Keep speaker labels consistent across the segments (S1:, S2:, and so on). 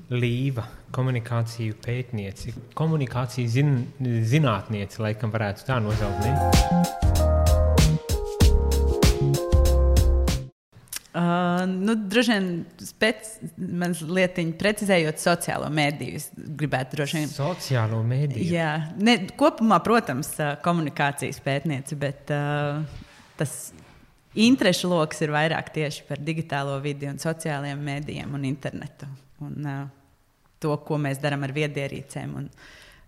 S1: Līva, komunikāciju pētnieci, komunikāciju zinātnieci, laikam varētu tā nosaukt, ne?
S2: Droši vien mans lietiņu precizējot sociālo mediju, es gribētu droši vien.
S1: Sociālo mediju?
S2: Jā, kopumā, protams, komunikācijas pētnieci, bet tas interešu loks ir vairāk tieši par digitālo vidi un sociālajiem medijiem un internetu. Un to, ko mēs darām ar viedierīcēm un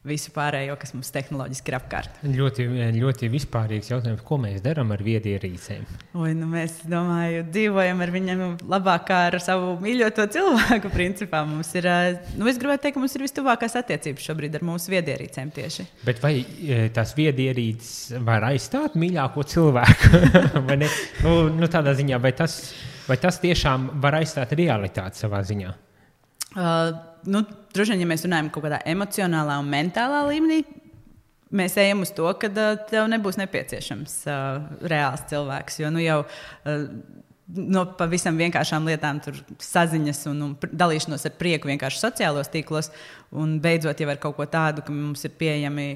S2: visu pārējo, kas mums tehnoloģiski ir apkārt.
S1: Ļoti vispārīgs jautājums, ko mēs darām ar viedierīcēm?
S2: Mēs, domāju, dzīvojam ar viņiem labāk kā ar savu mīļoto cilvēku, principā. Mums ir, es gribētu teikt, ka mums ir vistuvākās attiecības šobrīd ar mūsu viedierīcēm tieši.
S1: Bet vai tās viedierīces var aizstāt mīļāko cilvēku? Vai ne? Tādā ziņā, vai tas tiešām var aizstāt realitāti savā ziņā?
S2: Droši vien, ja mēs runājam kaut kādā emocionālā un mentālā līmenī, mēs ejam uz to, ka tev nebūs nepieciešams reāls cilvēks, jo jau no pavisam vienkāršām lietām tur saziņas un dalīšanos ar prieku vienkārši sociālos tīklos, un beidzot jau ar kaut ko tādu, ka mums ir pieejami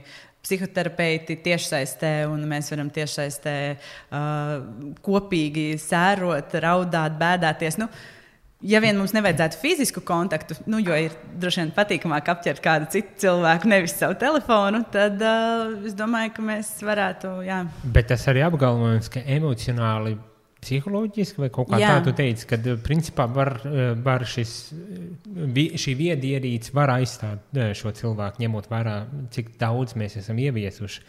S2: psihoterapeiti tiešsaistē, un mēs varam tiešsaistē kopīgi sērot, raudāt, bēdāties. Ja vien mums nevajadzētu fizisku kontaktu, jo ir droši vien patīkamāk apķert kādu citu cilvēku, nevis savu telefonu, tad es domāju, ka mēs varētu, jā.
S1: Bet tas arī apgalvojums, ka emocionāli, psiholoģiski vai kaut kā tādu teica, kad principā var šī viedierīce var aizstāt šo cilvēku, ņemot vērā, cik daudz mēs esam ieviesuši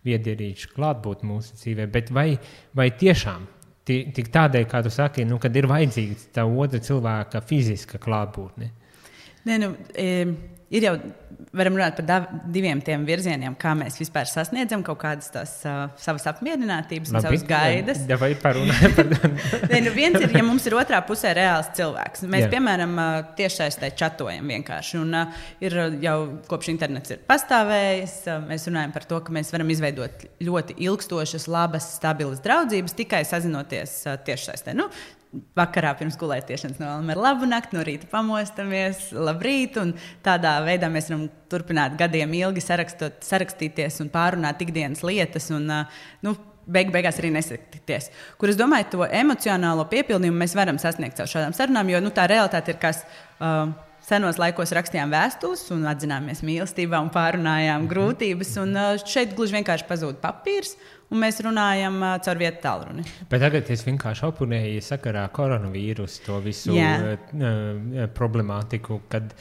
S1: viedierīču klātbūt mūsu dzīvē, bet vai tiešām tik tādēļ, kā tu saki, kad ir vajadzīga tā otra cilvēka fiziska klātbūtne? Ir jau, varam runāt par diviem tiem virzieniem, kā mēs vispār sasniedzam kaut kādas tās savas apmierinātības un savas gaidas. Vai parunājam par
S2: viens ir, ja mums ir otrā pusē reāls cilvēks. Mēs, piemēram, tiešsaistē čatojam vienkārši. Un ir jau kopš internets ir pastāvējis, mēs runājam par to, ka mēs varam izveidot ļoti ilgstošas, labas, stabilas draudzības, tikai sazinoties tiešsaistē. Vakarā pirms gulētiešanas novēlam ar labu nakti, no rīta pamostamies, labrīt, un tādā veidā mēs varam turpināt gadiem ilgi sarakstīties un pārunāt ikdienas lietas, un beigās arī nesatikties. Kur es domāju, to emocionālo piepildījumu mēs varam sasniegt caur šādām sarunām, jo tā realitāte ir, kas senos laikos rakstījām vēstules un atzināmies mīlestībā un pārunājām grūtības, un šeit gluži vienkārši pazūd papīrs, un mēs runājam caur vietu tālruni.
S1: Bet tagad es vienkārši oponēju sakarā koronavīrusu to visu problemātiku, kad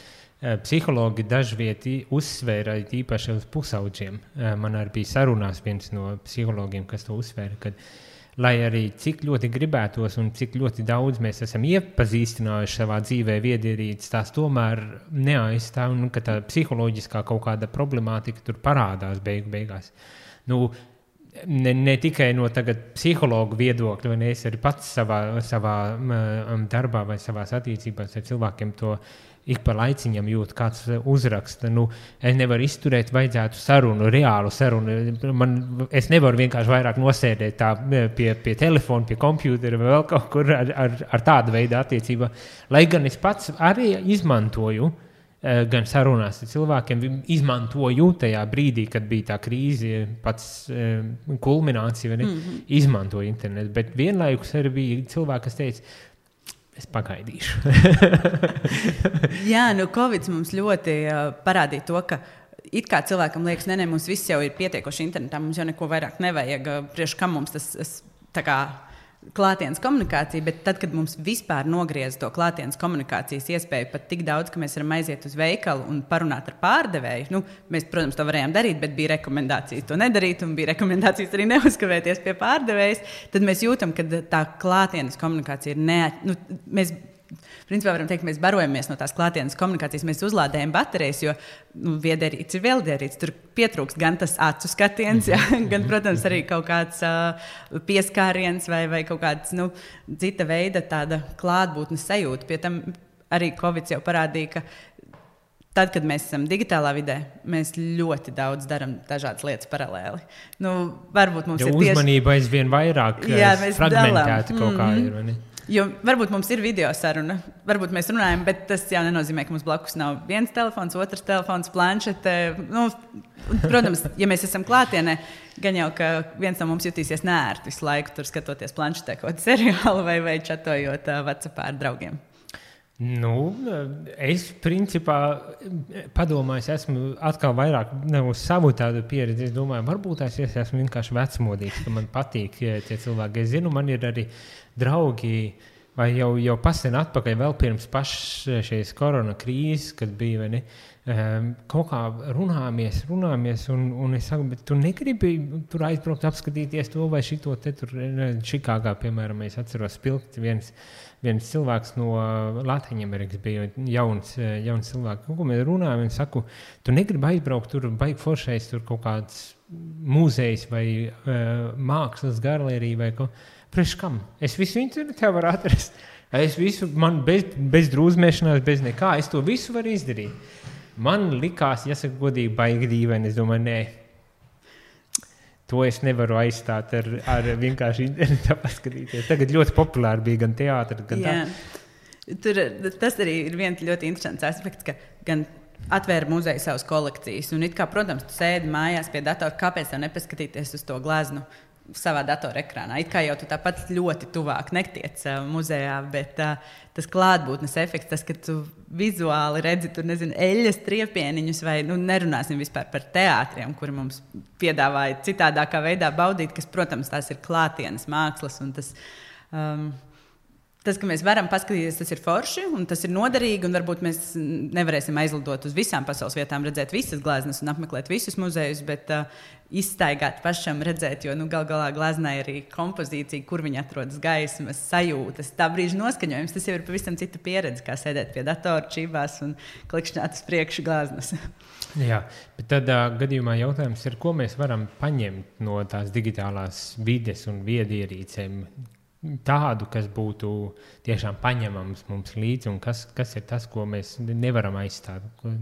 S1: psihologi dažvieti uzsvēra īpaši uz pusauģiem. Man arī bija sarunās viens no psihologiem, kas to uzsvēra, kad lai arī cik ļoti gribētos un cik ļoti daudz mēs esam iepazīstinājuši savā dzīvē viedierīces, tās tomēr neaizstāv, un ka tā psiholoģiskā kaut kāda problemātika tur parādās beigās. Ne tikai no tagad psihologu viedokļa, vai ne, es arī pats savā darbā vai savās attiecībās ar cilvēkiem to ik pa laiciņam jūt, kāds uzraksta. Es nevaru izturēt, vajadzētu sarunu, reālu sarunu. Es nevaru vienkārši vairāk nosēdēt tā pie telefona, pie kompjūtera vai vēl kaut kur ar tādu veidu attiecībā. Lai gan es pats arī izmantoju, gan sarunās ar cilvēkiem, izmantoju tajā brīdī, kad bija tā krīze, pats kulminācija, izmantoju internetu. Bet vienlaikus arī bija cilvēki, kas teica, es pagaidīšu.
S2: Jā, Covid mums ļoti parādīja to, ka it kā cilvēkam liekas, mums viss jau ir pietiekoši internetā, mums jau neko vairāk nevajag, priekš kam mums tas tā kā klātienes komunikācija, bet tad, kad mums vispār nogriez to klātienes komunikācijas iespēju pat tik daudz, ka mēs varam aiziet uz veikalu un parunāt ar pārdevēju, mēs, protams, to varējām darīt, bet bija rekomendācijas to nedarīt un bija rekomendācijas arī neuzkavēties pie pārdevējas, tad mēs jūtam, ka tā klātienes komunikācija ir mēs principā varam teikt, ka mēs barojamies no tās klātienes komunikācijas, mēs uzlādējam baterijas, jo viedierīce ir viedierīce. Tur pietrūkst gan tas acu skatiens, gan, protams, arī kaut kāds pieskāriens vai kaut kāds cita veida tāda klātbūtnes sajūta. Pie tam arī Covid jau parādīja, ka tad, kad mēs esam digitālā vidē, mēs ļoti daudz darām dažādas lietas paralēli. Varbūt mums ir tieši...
S1: Uzmanība aizvien vairāk fragmentēta kaut kā ir, vai ne?
S2: Jo varbūt mums ir video saruna, varbūt mēs runājam, bet tas jau nenozīmē, ka mums blakus nav viens telefons, otrs telefons, planšete. Nu, protams, ja mēs esam klātienē, gan jau, ka viens no mums jutīsies neērti visu laiku tur skatoties planšetē kaut kādu seriālu vai čatojot WhatsAppā ar draugiem.
S1: Nu, es principā padomāju, esmu atkal vairāk uz savu tādu pieredzi. Es domāju, varbūt es esmu vienkārši vecmodīgs, ka man patīk tie cilvēki. Es zinu, man ir arī draugi, vai jau pasen atpakaļ vēl pirms pašas šīs korona krīzes, kad bija, vai ne, kaut kā runāmies, un es saku, bet tu negribi tur aizbraukt apskatīties to vai šito te tur Čikāgā, piemēram, es atceros spilgt viens cilvēks no Latvijas bija jauns cilvēks, ko mēs runājam, un saku, tu negribi aizbraukt tur, baigi foršais tur kaut kāds mūzejs vai mākslas galerija vai kaut priekš kam? Es visu internetā varu atrast. Es visu, man bez drūzmēšanās, bez nekā, es to visu varu izdarīt. Man likās, jāsaka godīgi, baigi dīvaini, es domāju, nē. To es nevaru aizstāt ar vienkārši internetā paskatīties. Tagad ļoti populāri bija gan teātri, gan tā.
S2: Tas arī ir viens ļoti interesants aspekts, ka gan atvēra muzeju savas kolekcijas. Un it kā, protams, tu sēdi mājās pie datora, kāpēc tev nepaskatīties uz to gleznu savā datorekrānā. It kā jau tu tāpat ļoti tuvāk netiec muzejā, bet tas klātbūtnes efekts, tas, ka tu vizuāli redzi tur, nezinu, eļļas triepieniņus vai, nerunāsim vispār par teātriem, kuri mums piedāvāja citādākā veidā baudīt, kas, protams, tās ir klātienes mākslas un tas... Tas, ka mēs varam paskatīties, tas ir forši un tas ir noderīgi, un varbūt mēs nevarēsim aizlidot uz visām pasaules vietām, redzēt visas gleznas un apmeklēt visus muzejus, bet izstaigāt pašam redzēt, jo gal galā gleznai arī kompozīcija, kur viņi atrodas gaismas, sajūtas, tā brīža noskaņojums, tas jau ir pavisam cita pieredze, kā sēdēt pie datora čībās un klikšķināt uz priekšu gleznas.
S1: Jā, bet tad gadījumā jautājums ir, ko mēs varam paņemt no tās digitālās vides un viedierīcēm, tādu, kas būtu tiešām paņemams mums līdzi, un kas ir tas, ko mēs nevaram aizstāt, ko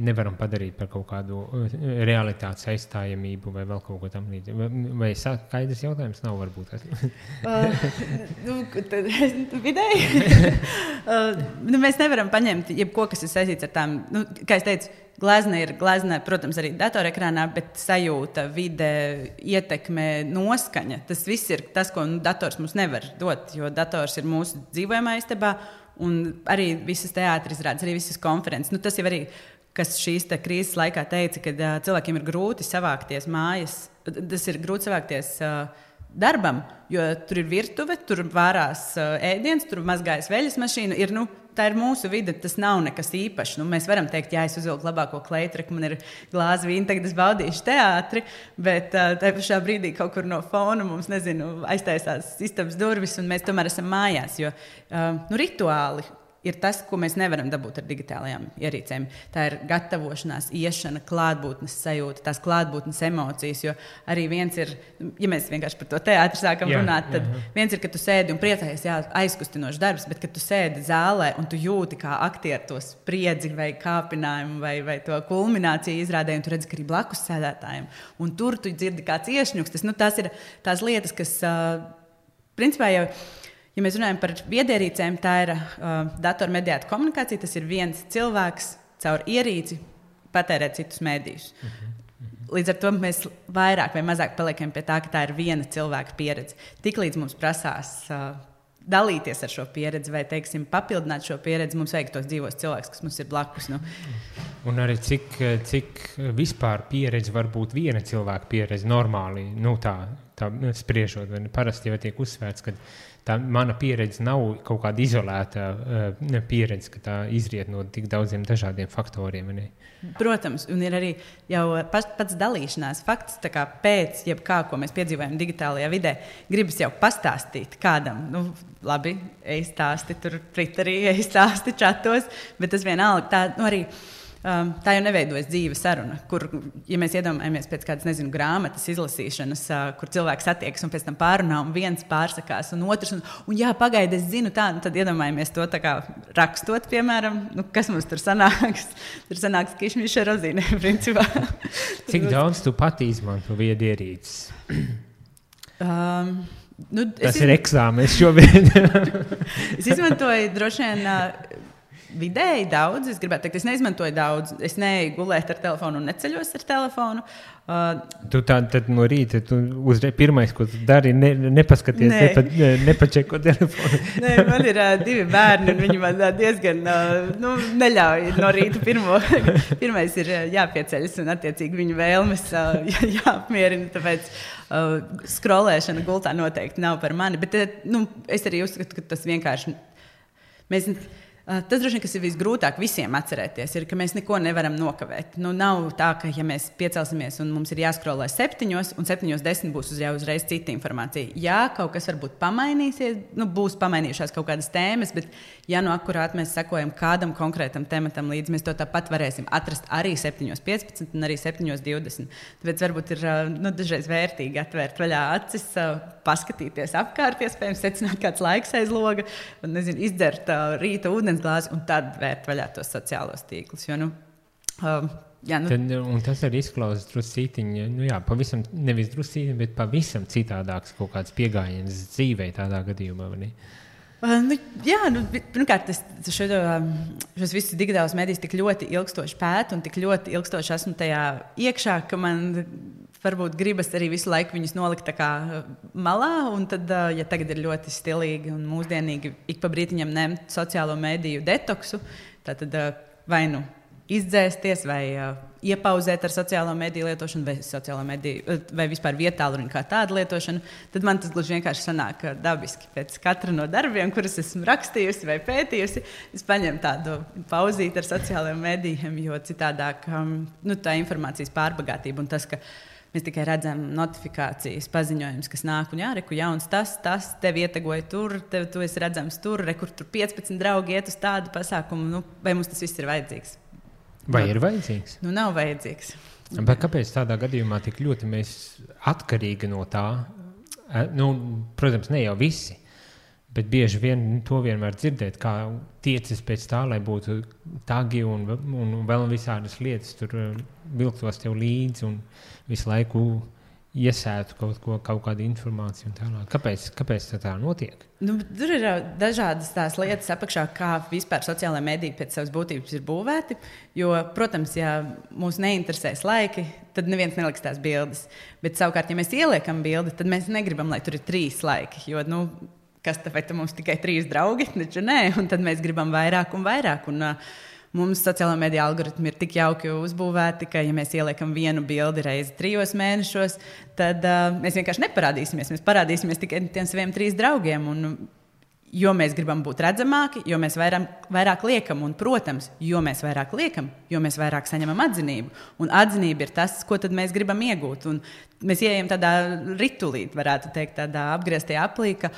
S1: nevaram padarīt par kaut kādu realitātes aizstājamību vai vēl kaut ko tam līdzi. Vai skaidrs jautājums nav varbūt?
S2: Vidēji. Mēs nevaram paņemt jebko, kas ir saistīts ar tām, kā es teicu, glezna, protams, arī datorekrānā, bet sajūta, vide, ietekme, noskaņa. Tas viss ir tas, ko dators mums nevar dot, jo dators ir mūsu dzīvojamā istabā, un arī visas teātris izrādes, arī visas konferences. Tas jau arī, kas šīs krīzes laikā teica, ka cilvēkiem ir grūti savākties mājas. Tas ir grūti savākties darbam, jo tur ir virtuve, tur vārās ēdiens, tur mazgājas veļas mašīna, tā ir mūsu vide, tas nav nekas īpašs. Mēs varam teikt, jā, es uzvilku labāko kleitreku, man ir glāze vīna, tagad es baudīšu teātri, bet tajā pašā brīdī kaut kur no fona mums, aiztaisās istabas durvis, un mēs tomēr esam mājās, jo rituāli ir tas, ko mēs nevaram dabūt ar digitālajām ierīcēm. Tā ir gatavošanās, iešana, klātbūtnes sajūta, tās klātbūtnes emocijas, jo arī viens ir, ja mēs vienkārši par to teātri sākam runāt, tad viens ir, ka tu sēdi un priecājies, aizkustinošs darbs, bet kad tu sēdi zālē un tu jūti kā aktieri to spriedzi vai kāpinājumu vai to kulmināciju izrādē, un tu redzi, ka arī blakus sēdētājiem. Un tur tu dzirdi kāds iešņuks. Tas ir tās lietas, kas principā jau... Ja mēs runājam par viedierīcēm, tā ir datormediēta komunikācija. Tas ir viens cilvēks caur ierīci patērēt citus mēdījus. Līdz ar to mēs vairāk vai mazāk paliekam pie tā, ka tā ir viena cilvēka pieredze. Tiklīdz mums prasās dalīties ar šo pieredzi vai, teiksim, papildināt šo pieredzi, mums vajag tos dzīvos cilvēkus, kas mums ir blakus.
S1: Un arī cik vispār pieredze var būt viena cilvēka pieredze normāli, tā spriežot. Parasti jau tiek uzsvērts, ka tā mana pieredze nav kaut kāda izolēta pieredze, ka tā izriet no tik daudziem dažādiem faktoriem. Ne?
S2: Protams, un ir arī jau pats dalīšanās fakts, tā kā pēc jebkā, ko mēs piedzīvojam digitālajā vidē, gribas jau pastāstīt kādam. Labi, ej stāsti tur Twitterī, ej stāsti čatos, bet tas vienalga tā, arī... Tā jau neveidojas dzīve saruna, kur, ja mēs iedomājamies pēc kādas, grāmatas izlasīšanas, kur cilvēks satiekas un pēc tam pārunā, un viens pārsakās, un otrs, un jā, pagaidi, es zinu tā, tad iedomājamies to tā kā rakstot, piemēram, kas mums tur sanāks. Tur sanāks kišmiša rozīne, principā.
S1: Cik daudz tu pati izmanto viedierīces? Tas ir eksāmenis šobrīd.
S2: Es izmantoju droši vien vidēji daudz. Es gribētu teikt, es neizmantoju daudz. Es neeju gulēt ar telefonu un neceļos ar telefonu.
S1: Tu tad no rīta, uzreiz pirmais, ko tu dari, nepaskaties, nepačeko telefonu.
S2: Nē, man ir 2 bērni, un viņi man diezgan neļauj no rīta pirmais ir jāpieceļas, un attiecīgi viņu vēlmes jāapmierina, tāpēc skrolēšana gultā noteikti nav par mani, bet es arī uzskatu, ka tas vienkārši tas droši vien, kas ir visgrūtāk visiem atcerēties, ir, ka mēs neko nevaram nokavēt. Nav tā, ka ja mēs piecelsimies un mums ir jāskrolē 7, un 7:10 būs uzreiz cita informācija. Jā, kaut kas varbūt pamainīsies, būs pamainījušās kaut kādas tēmas, bet ja akurāt mēs sekojam kādam konkrētam tematam līdz, mēs to tāpat varēsim atrast arī 7:15 un arī 7:20. Tāpēc varbūt ir dažreiz vērtīgi atvērt vaļā acis, paskatīties apkārt, iespējams secināt kāds laiks aiz loga, un, izdzert rīta ūdens glāzi un tad vērt vaļā tos sociālos tīklus.
S1: Un tas arī izklausās druscītiņi, pavisam, nevis druscītiņi, bet pavisam citādāks kaut kāds piegājiens dzīvē tādā gadījumā, vai ne?
S2: Pirmkārt, šos visus digitālos medijus tik ļoti ilgstoši pētu un tik ļoti ilgstoši esmu tajā iekšā, ka man varbūt gribas arī visu laiku viņus nolikt tā kā malā, un tad, ja tagad ir ļoti stilīgi un mūsdienīgi ik pa brītiņam ņemt sociālo mediju detoksu, tad vai izdzēsties vai iepauzēt ar sociālo mediju lietošanu vai vispār vietālu kā tādu lietošanu, tad man tas gluži vienkārši sanāk dabiski. Pēc katra no darbiem, kurus esmu rakstījusi vai pētījusi, es paņemu tādu pauzīti ar sociālajiem medijiem, jo citādāk tā informācijas pārbagātība un tas, ka mēs tikai redzam notifikācijas, paziņojumus, kas nāk, un reku jauns tas, tevi ietegoja tur, tu esi redzams tur, kur tur 15 draugi iet uz tādu pasākumu, vai mums tas viss ir vajadzīgs?
S1: Vai ir vajadzīgs?
S2: Nav vajadzīgs.
S1: Bet kāpēc tādā gadījumā tik ļoti mēs atkarīgi no tā? Protams, ne jau visi, bet bieži vien to vienmēr dzirdēt, kā tiecis pēc tā, lai būtu tagi un vēl visādas lietas tur vilktos tev līdzi un visu laiku iesētu kaut kādu informāciju un tālāk. Kāpēc tā notiek?
S2: Tur ir dažādas tās lietas apakšā, kā vispār sociālajā mediji pēc savas būtības ir būvēti, jo, protams, ja mūs neinteresēs laiki, tad neviens neliks tās bildes. Bet savukārt, ja mēs ieliekam bildi, tad mēs negribam, lai tur ir 3 laiki, jo, kas tāpēc mums tikai 3 draugi, taču nē, un tad mēs gribam vairāk un vairāk, un mums sociālā mediju algoritmi ir tik jauki uzbūvēti, ka, ja mēs ieliekam vienu bildi reizi 3 mēnešos, tad mēs vienkārši neparādīsimies. Mēs parādīsimies tikai tiem saviem 3 draugiem. Un, jo mēs gribam būt redzamāki, jo mēs vairāk liekam. Un, protams, jo mēs vairāk liekam, jo mēs vairāk saņemam atzinību. Un atzinība ir tas, ko tad mēs gribam iegūt. Un mēs ieejam tādā ritulī, varētu teikt, tādā apgrieztajā aplī, ka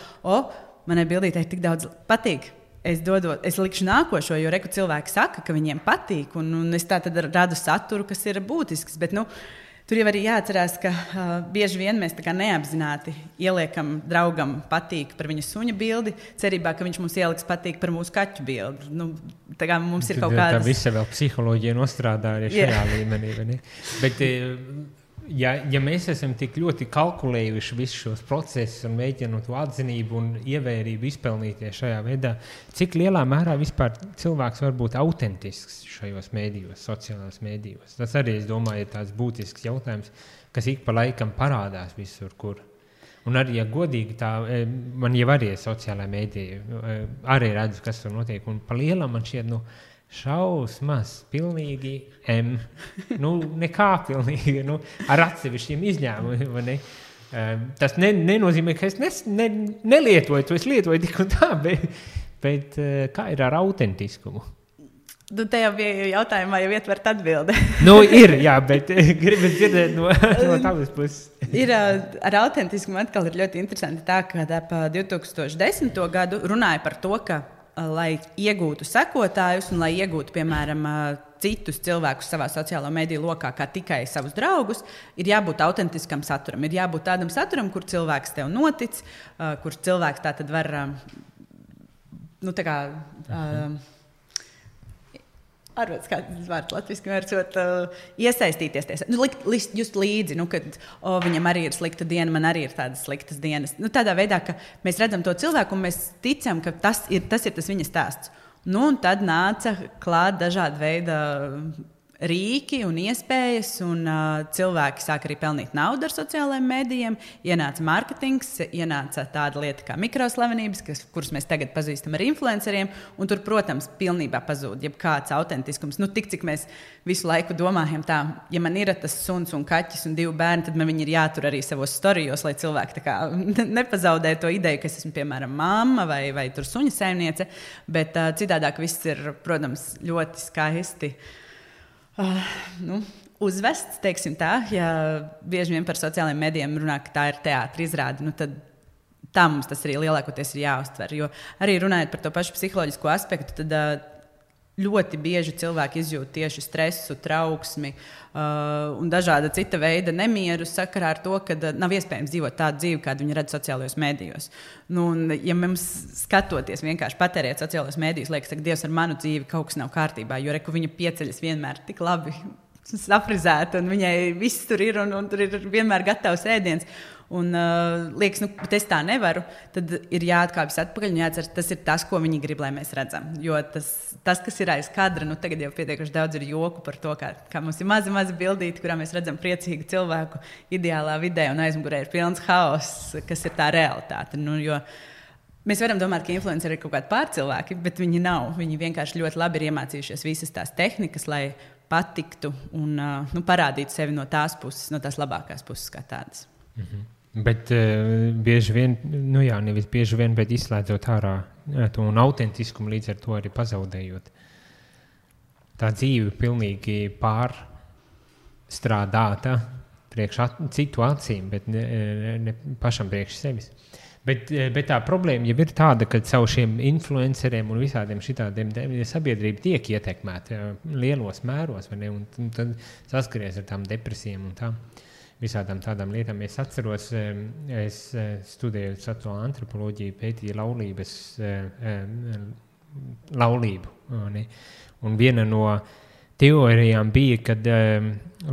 S2: manai bildītei tik daudz patīk. Es likšu nākošo, jo cilvēki saka, ka viņiem patīk, un es tā tad radu saturu, kas ir būtisks. Bet, tur jau arī jāatcerās, ka bieži vien mēs tā kā neapzināti ieliekam draugam patīk par viņa suņa bildi, cerībā, ka viņš mums ieliks patīk par mūsu kaķu bildi. Tā kā mums ir kaut kādas...
S1: Tā visa vēl psiholoģija nostrādā arī šajā līmenī. Vai ne? Bet... Ja mēs esam tik ļoti kalkulējuši visus šos procesus un mēģinot to atzinību un ievērību izpelnīties šajā veidā, cik lielā mērā vispār cilvēks var būt autentisks šajos mēdījos, sociālās mēdījos? Tas arī, es domāju, ir tāds būtisks jautājums, kas ik pa laikam parādās visur, kur. Un arī, ja godīgi tā, man jau arī ir sociālā mēdīja, arī redzu, kas tur notiek, un pa lielam man šķiet, šausmas, pilnīgi nekā pilnīgi, ar atsevišķiem izņēmumiem. Tas nenozīmē, ka es nelietoju to, es lietoju tik un tā, bet kā ir ar autentiskumu?
S2: Te jau bija jautājumā, jau ietvert atbildi.
S1: Ir, jā, bet gribas dzirdēt no tavas puses.
S2: Ar autentiskumu atkal ir ļoti interesanti tā, ka ap 2010. gadu runāja par to, ka lai iegūtu sekotājus un lai iegūtu, piemēram, citus cilvēkus savā sociālo mediju lokā, kā tikai savus draugus, ir jābūt autentiskam saturam. Ir jābūt tādam saturam, kur cilvēks tev notic, kur cilvēks tā tad var Arvots, kā tas vārds latviski vērcot, iesaistīties. Just līdzi, kad viņam arī ir slikta diena, man arī ir tādas sliktas dienas. Tādā veidā, ka mēs redzam to cilvēku un mēs ticam, ka tas ir tas viņa stāsts. Un tad nāca klāt dažādi veidi rīki un iespējas, un cilvēki sāk arī pelnīt naudu ar sociālajiem mēdījiem. Ienāca mārketings, ienāca tāda lieta kā mikroslavenības, kuras mēs tagad pazīstam ar influenceriem, un tur, protams, pilnībā pazūd jebkāds autentiskums. Tik, cik mēs visu laiku domājam tā, ja man ir tas suns un kaķis un 2 bērni, tad man viņi ir jātur arī savos storijos, lai cilvēki tā kā nepazaudē to ideju, ka es esmu, piemēram, mamma vai tur suņa saimniece, bet citādāk viss ir, protams, ļoti skaisti. Uzvests, teiksim tā, ja bieži vien par sociālajiem medijiem runā, ka tā ir teātra izrāde, tad tā mums tas arī lielākoties ir jāuztver. Jo arī runājot par to pašu psiholoģisko aspektu, tad ļoti bieži cilvēki izjūt tieši stresu, trauksmi un dažāda cita veida nemieru sakarā ar to, ka nav iespējams dzīvot tādu dzīvi, kādu viņi redz sociālajos mēdījos. Ja mums skatoties vienkārši patērēt sociālajos mēdījos, liekas, ka Dievs ar manu dzīvi kaut kas nav kārtībā, jo viņa pieceļas vienmēr tik labi saprizēta, un viņai viss tur ir, un tur ir vienmēr gatavs ēdiens. Un liekas, bet es tā nevaru, tad ir jāatkāpjas atpakaļ un jāatcer, tas ir tas, ko viņi grib, lai mēs redzam. Jo tas kas ir aiz kadra, tagad jau pietiekuši daudz ir joku par to, kā mums ir mazi bildīti, kurā mēs redzam priecīgu cilvēku ideālā vidē, un aizmugurē ir pilns haoss, kas ir tā realitāte. Jo mēs varam domāt, ka influenceri ir kaut kādi pārcilvēki, bet viņi nav. Viņi vienkārši ļoti labi ir iemācījušies visas tās tehnikas, lai patiktu un parādītu sevi no tās puses, no tās labākās puses kā tādas.
S1: Mhm. Bet bieži vien, nevis bieži vien, bet izslēdzot ārā to un autentiskumu, līdz ar to arī pazaudējot. Tā dzīve pilnīgi pārstrādāta priekš citu acīm, bet ne pašam priekš sevis. Bet tā problēma jau ir tāda, ka caur šiem influenceriem un visādiem šitādiem sabiedrība tiek ietekmēta lielos mēros, vai ne? Un tad saskaries ar tām depresijām un tām. Visādām tādām lietām. Es atceros, es studēju sociālo antropoloģiju, pētīju laulību. Ne? Un viena no teorijām bija, kad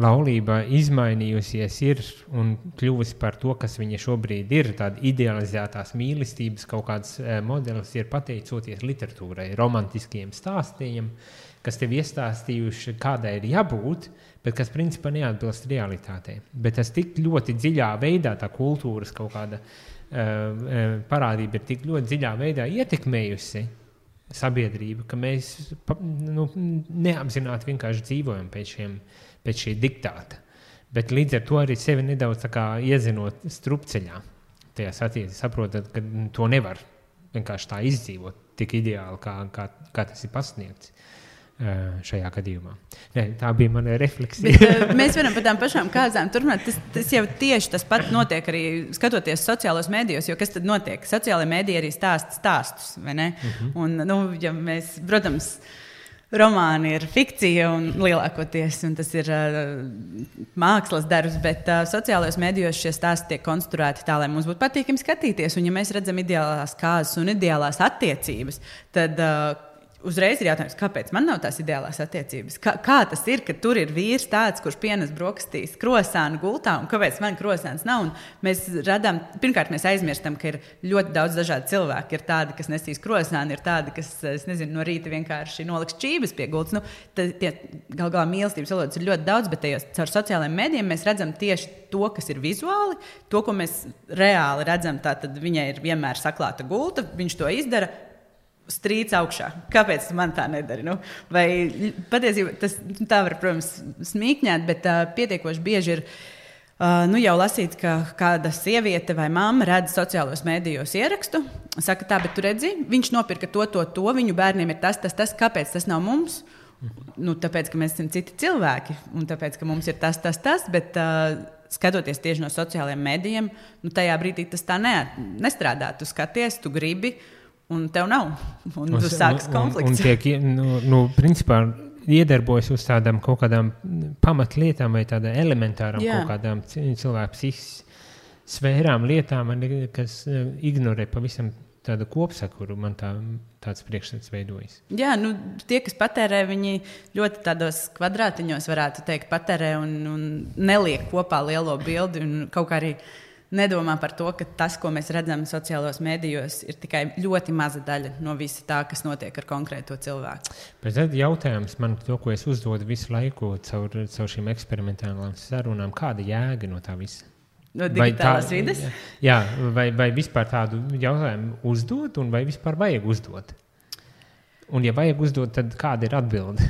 S1: laulība izmainījusies ir un kļuvusi par to, kas viņa šobrīd ir, tāda idealizētās mīlestības kaut kāds modelis ir pateicoties literatūrai, romantiskiem stāstījiem, kas tev iestāstījuši, kādai ir jābūt, bet kas principā neatbilst realitātei. Bet tas tik ļoti dziļā veidā, tā kultūras kaut kāda parādība ir tik ļoti dziļā veidā ietekmējusi sabiedrību, ka mēs neapzināti vienkārši dzīvojam pēc šī diktāta. Bet līdz ar to arī sevi nedaudz tā kā iezinot strupceļā. Tajās attiecībā saprotat, ka to nevar vienkārši tā izdzīvot tik ideāli, kā tas ir pasniegts. Šajā gadījumā. Tā bija mana refleksija.
S2: Bet, mēs varam par tām pašām kāzām turpināt. Tas jau tieši tas pat notiek arī skatoties sociālos mēdījos, jo kas tad notiek? Sociālajie mēdīji arī stāsta stāstus, vai ne? Un, ja mēs, protams, romāni ir fikcija un lielākoties, un tas ir mākslas darbs, bet sociālajos mēdījos šie stāsti tiek konstruēti tā, lai mums būtu patīkami skatīties. Un ja mēs redzam ideālās kāzas un ideālās attiecības, tad uzreiz ir jautājums, kāpēc man nav tās ideālās attiecības? Kā tas ir, ka tur ir vīrs tāds, kurš pienes brokastīs krosānu gultā, un kāpēc man krosāns nav? Un mēs radām, pirmkārt, mēs aizmirstam, ka ir ļoti daudz dažādu cilvēku. Ir tādi, kas nesīs krosānu, ir tādi, kas, no rīta vienkārši noliks čības pie gultas. Gal galā mīlestības valodas ir ļoti daudz, bet tajos caur sociālajiem mēdījiem mēs redzam tieši to, kas ir vizuāli, to, ko mēs reāli redzam. Tātad viņai ir vienmēr saklāta gulta, viņš to izdara, strīds augšā. Kāpēc man tā nedara? Vai patiesībā tas tā var, protams, smīkņāt, bet pietiekoši bieži ir jau lasīts, ka kāda sieviete vai mamma redz sociālos mēdījos ierakstu, saka tā, bet tu redzi, viņš nopirka to, viņu bērniem ir tas, kāpēc tas nav mums? Tāpēc, ka mēs esam citi cilvēki, un tāpēc, ka mums ir tas, bet skatoties tieši no sociālajiem mēdījiem, tajā brīdī tas tā nestrādā. Tu skaties, tu gribi, un tev nav. Un tu sākas konflikts.
S1: Un tiek, principā, iedarbojas uz tādām kaut kādām pamatlietām vai tādām elementārām kaut kādām cilvēku psihiskas sfērām, lietām, kas ignorē pavisam tāda kopsakuru, man tāds priekšstats veidojas.
S2: Jā, tie, kas patērē, viņi ļoti tādos kvadrātiņos, varētu teikt, patērē un neliek kopā lielo bildi un kaut kā arī nedomā par to, ka tas, ko mēs redzam sociālos medijos, ir tikai ļoti maza daļa no visa tā, kas notiek ar konkrēto cilvēku.
S1: Bet tad jautājums man to, ko es uzdodu visu laiku caur šīm eksperimentālām sarunām, kāda jēga no tā visa?
S2: No digitālās vides?
S1: Jā, vai vispār tādu jautājumu uzdot, un vai vispār vajag uzdot? Un ja vajag uzdot, tad kāda ir atbilde?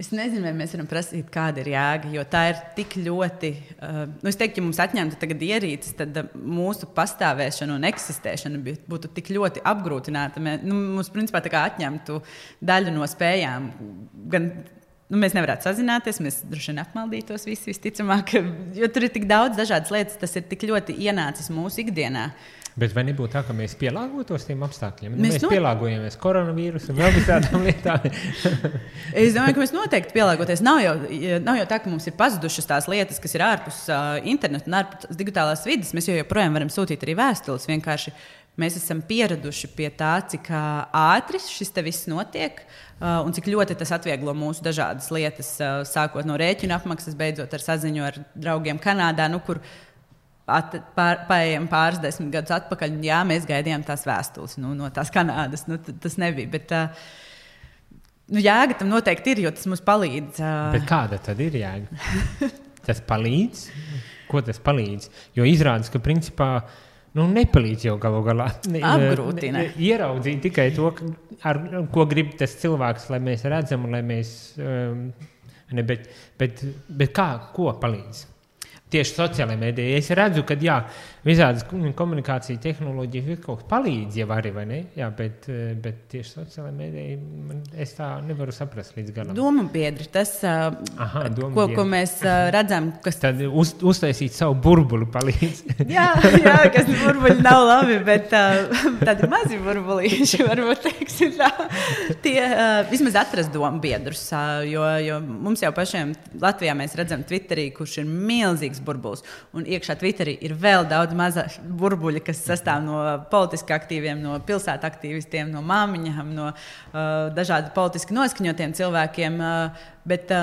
S2: Es nezinu, vai mēs varam prasīt, kāda ir jēga, jo tā ir tik ļoti. Es teiktu, ja mums atņemtu tagad ierīces, tad mūsu pastāvēšana un eksistēšana būtu tik ļoti apgrūtināta. Mums, principā, tā kā atņemtu daļu no spējām. Gan mēs nevarētu sazināties, mēs droši vien apmaldītos visi visticamāk, jo tur ir tik daudz dažādas lietas, tas ir tik ļoti ienācis mūsu ikdienā.
S1: Bet vai nebūtu tā, ka mēs pielāgotos tiem apstākļiem? Mēs pielāgojamies koronavīrusu un vēl visādām lietām.
S2: Es domāju, ka mēs noteikti pielāgoties. Nav jau tā, ka mums ir pazudušas tās lietas, kas ir ārpus interneta un ārpus digitālās vides. Mēs joprojām varam sūtīt arī vēstules. Vienkārši mēs esam pieraduši pie tā, cik ātri šis te viss notiek un cik ļoti tas atvieglo mūsu dažādas lietas, sākot no rēķina apmaksas, beidzot ar saziņu ar draugiem Kanādā, kur paejam pāris 10 gadus atpakaļ, jā, mēs gaidījām tās vēstules no tās Kanādas. Tas nebija, bet jēga tam noteikti ir, jo tas mums palīdz.
S1: Bet kāda tad ir jēga? Tas palīdz? Ko tas palīdz? Jo izrādās, ka principā nepalīdz jau galu galā.
S2: Apgrūtina.
S1: Ieraudzīt tikai to, ar ko grib tas cilvēks, lai mēs redzam, lai mēs... Bet kā, ko palīdz? Tieši sociālajā mēdījā. Es redzu, ka visādas komunikācija tehnoloģijas kaut kas palīdz jau arī, vai ne? Jā, bet tieši sociālajā mēdījā es tā nevaru saprast līdz galam.
S2: Doma biedri, tas, ko mēs redzam, kas...
S1: Tad uztaisīt savu burbuli palīdz.
S2: jā, kas burbuļi nav labi, bet tādi mazi burbulīši, varbūt teiksim tā. Tie vismaz atrast domu biedrus, jo mums jau pašiem Latvijā mēs redzam Twitterī, kurš ir milzīgs burbulis. Un iekšā Twitterī ir vēl daudz maza burbuļa, kas sastāv no politiski aktīviem, no pilsētu aktīvistiem, no māmiņām, no dažādi politiski noskaņotiem cilvēkiem. Bet,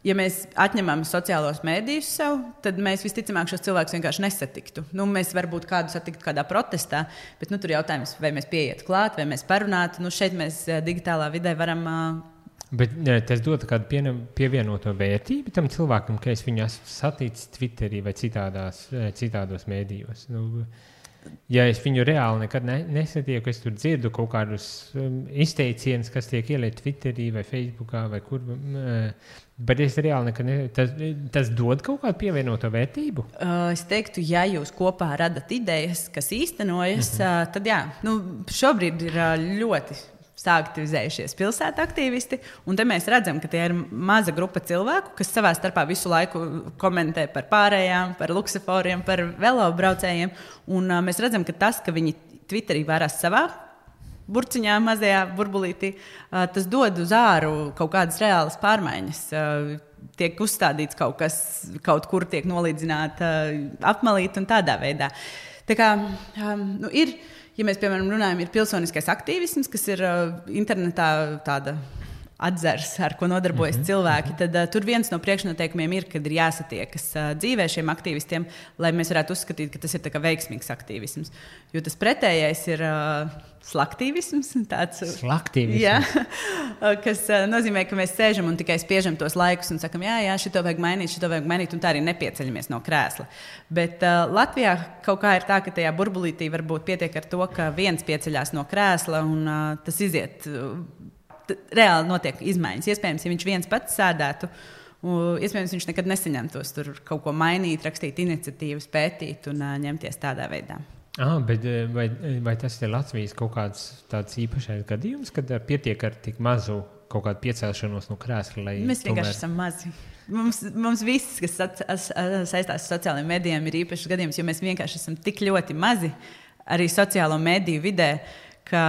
S2: ja mēs atņemam sociālos mēdījus sev, tad mēs visticamāk šos cilvēkus vienkārši nesatiktu. Mēs varbūt kādu satiktu kādā protestā, bet tur jautājums, vai mēs pieietu klāt, vai mēs parunātu. Šeit mēs digitālā vidē varam...
S1: Bet tas dod kādu pievienoto vērtību tam cilvēkam, ka es viņu esmu saticis Twitterī vai citādos mēdījos. Ja es viņu reāli nekad nesatieku, es tur dzirdu kaut kādus izteicienus, kas tiek ieliet Twitterī vai Facebookā vai kur. Bet es reāli nekad tas dod kaut kādu pievienoto vērtību?
S2: Es teiktu, ja jūs kopā radat idejas, kas īstenojas, tad jā. Šobrīd ir ļoti saaktivizējušies pilsētu aktīvisti, un te mēs redzam, ka tie ir maza grupa cilvēku, kas savā starpā visu laiku komentē par pārējām, par luksaforiem, par velobraucējiem, un mēs redzam, ka tas, ka viņi Twitterī vērās savā burciņā, mazajā burbulītī, tas dod uz āru kaut kādas reālas pārmaiņas. Tiek uzstādīts kaut kas, kaut kur tiek nolīdzināta apmalīta un tādā veidā. Tā kā ir... Ja mēs, piemēram, runājam, ir pilsoniskais aktīvisms, kas ir internetā tāda atzars, ar ko nodarbojas cilvēki, tad tur viens no priekšnoteikumiem ir, kad ir jāsatiekas dzīvē šiem aktīvistiem, lai mēs varētu uzskatīt, ka tas ir tā kā veiksmīgs aktīvisms. Jo tas pretējais ir slaktīvisms.
S1: Slaktīvisms?
S2: Jā, kas nozīmē, ka mēs sēžam un tikai spiežam tos laikus un sakam, jā, šito vajag mainīt, un tā arī nepieceļamies no krēsla. Bet Latvijā kaut kā ir tā, ka tajā burbulītī varbūt pietiek ar to, ka viens pieceļās no krēsla un tas iziet... Reāli notiek izmaiņas. Iespējams, ja viņš viens pats sēdētu, iespējams, viņš nekad nesaņemtos tur kaut ko mainīt, rakstīt iniciatīvas, pētīt un ņemties tādā veidā.
S1: Bet vai tas ir Latvijas kaut kāds tāds īpašais gadījums, kad pietiek ar tik mazu kaut kādu piecelšanos no krēsla?
S2: Mēs vienkārši esam mazi. Mums viss, kas saistās ar sociālajiem medijiem, ir īpašs gadījums, jo mēs vienkārši esam tik ļoti mazi arī sociālo mediju vidē, ka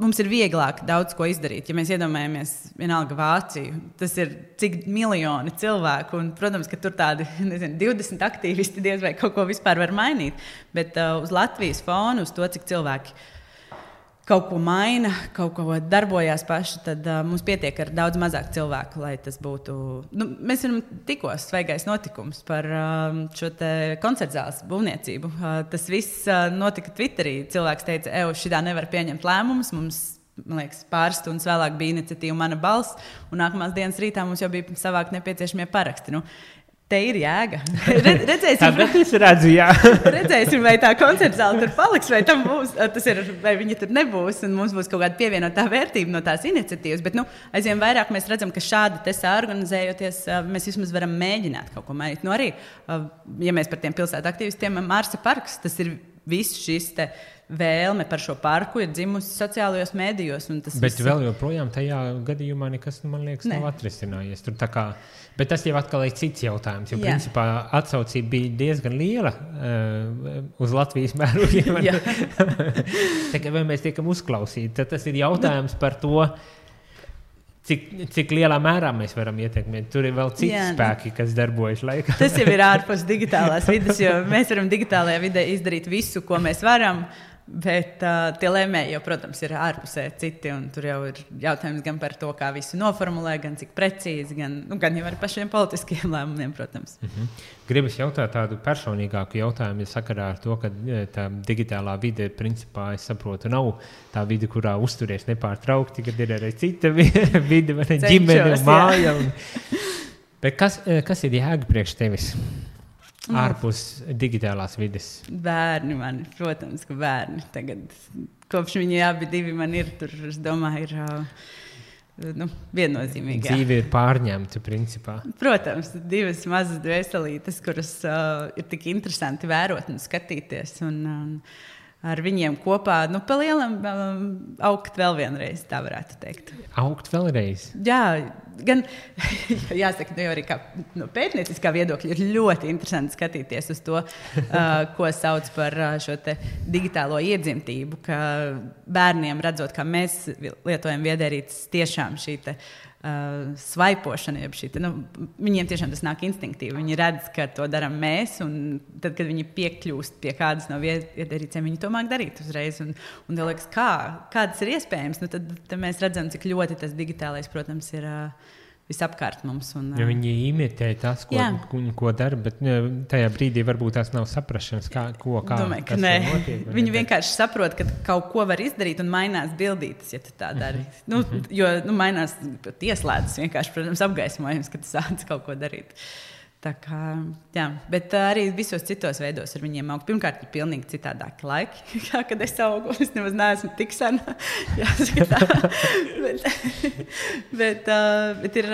S2: mums ir vieglāk daudz ko izdarīt. Ja mēs iedomājamies vienalga Vāciju, tas ir cik miljoni cilvēku, un, protams, ka tur tādi 20 aktīvisti diez vai kaut ko vispār var mainīt, bet uz Latvijas fonu, uz to, cik cilvēki kaut ko maina, kaut ko darbojās paši, tad mums pietiek ar daudz mazāk cilvēku, lai tas būtu... mēs varam tikko svaigais notikums par šo te koncertzāles būvniecību. Tas viss notika Twitterī. Cilvēks teica, šitā nevar pieņemt lēmumus, mums, man liekas, pāris stundas vēlāk bija iniciatīva Mana balss, un nākamās dienas rītā mums jau bija savākt nepieciešamie paraksti. Te ir jēga. Redzēsim, vai tā koncertzāle tur paliks, vai tam būs, vai viņa tur nebūs, un mums būs kaut kāda pievienotā vērtība no tās iniciatīvas. Bet aizvien vairāk mēs redzam, ka šādi te saorganizējoties, mēs vismaz varam mēģināt kaut ko mainīt. Arī, ja mēs par tiem pilsētu aktīvistiem, Marsa parks, tas ir viss šis te vēlme par šo parku ir dzimusi sociālajos mēdījos.
S1: Bet vēl joprojām tajā gadījumā nekas, man liekas, nav atrisinājies. Tur tā kā, bet tas jau atkal ir cits jautājums, jo principā atsaucība bija diezgan liela uz Latvijas mērogiem. Vai mēs tiekam uzklausīti, tad tas ir jautājums par to, cik lielā mērā mēs varam ietekmēt. Tur ir vēl citi spēki, kas darbojas laikā.
S2: Tas jau ir ārpus digitālās vides, jo mēs varam digitālajā vidē izdarīt visu, ko mēs varam, bet tie lēmēji jau, protams, ir ārpusē citi, un tur jau ir jautājums gan par to, kā visu noformulē, gan cik precīzi, gan jau ar pašiem politiskiem lēmumiem, protams.
S1: Gribas jautāt tādu personīgāku jautājumu, sakarā ar to, ka tā digitālā vide, principā, es saprotu, nav tā vide, kurā uzturies nepārtraukti, kad ir arī cita vide, vai ģimene un māja. Bet kas ir jēga priekš tevis? Ārpus digitālās vides.
S2: Bērni man, protams, ka bērni. Tagad, kopš viņi abi divi man ir, tur, es domāju, ir viennozīmīgi.
S1: Dzīve ir pārņemta, principā.
S2: Protams, divas mazas dvēselītes, kuras ir tik interesanti vērot un skatīties. Un ar viņiem kopā, pa lielam augt vēl vienreiz, tā varētu teikt.
S1: Augt vēlreiz?
S2: Jā, gan, jāsaka, jau arī kā pētnieciskā viedokļa ir ļoti interesanti skatīties uz to, ko sauc par šo te digitālo iedzimtību, ka bērniem redzot, kā mēs lietojam viedierīces, tiešām šī te svaipošana, viņiem tiešām tas nāk instinktīvi. Viņi redz, ka to daram mēs, un tad, kad viņi piekļūst pie kādas no viedierīcēm, viņi to māk darīt uzreiz. Un tev liekas, kā tas ir iespējams, tad mēs redzam, cik ļoti tas digitālais, protams, ir visapkārt mums.
S1: Ja viņi imitē tas, ko dara, bet tajā brīdī varbūt tās nav saprašanas,
S2: Domāju, ka nē. Viņi vienkārši saprot, ka kaut ko var izdarīt un mainās bildītes, ja tu tā dari. Jo mainās ieslēdzas vienkārši, protams, apgaismojums, ka tu sāc kaut ko darīt. Tā kā, bet arī visos citos veidos ar viņiem aug. Pirmkārt, ir pilnīgi citādāki laiki, kad es augu. Es nemaz neesmu tik sena. bet ir,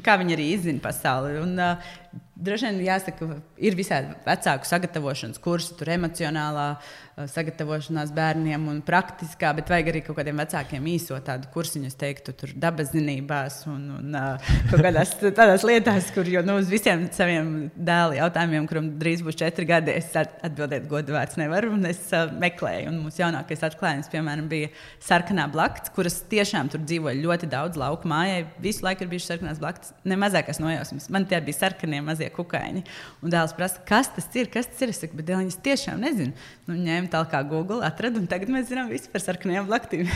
S2: kā viņi arī izzina pasauli. Un droši vien jāsaka, ir visādi vecāku sagatavošanas kursi, tur emocionālā sagatavošanās bērniem un praktiskā, bet vajag arī kaut kādiem vecākiem īso tādu kursiņu, es teiktu, tur dabaszinībās un kaut kādās tādās lietās, kur jau uz visiem saviem dēli jautājumiem, kuram drīz būs 4 gadi, es atbildēt godu vārds nevaru, un es meklēju. Un mūsu jaunākais atklājums, piemēram, bija sarkanā blakts, kuras tiešām tur dzīvoja ļoti daudz lauku mājai. Visu laiku ir bijuši sarkanās blakts, ne mazākās nojausmas. Man tie bija sarkanie mazie kukaiņi. Un dēls prasa, kas tas ir? Es saku, bet dēliņas tiešām nezinu. Ņēmu tālāk kā Google, atradu, un tagad mēs zinām visu par sarkanajām blaktīm.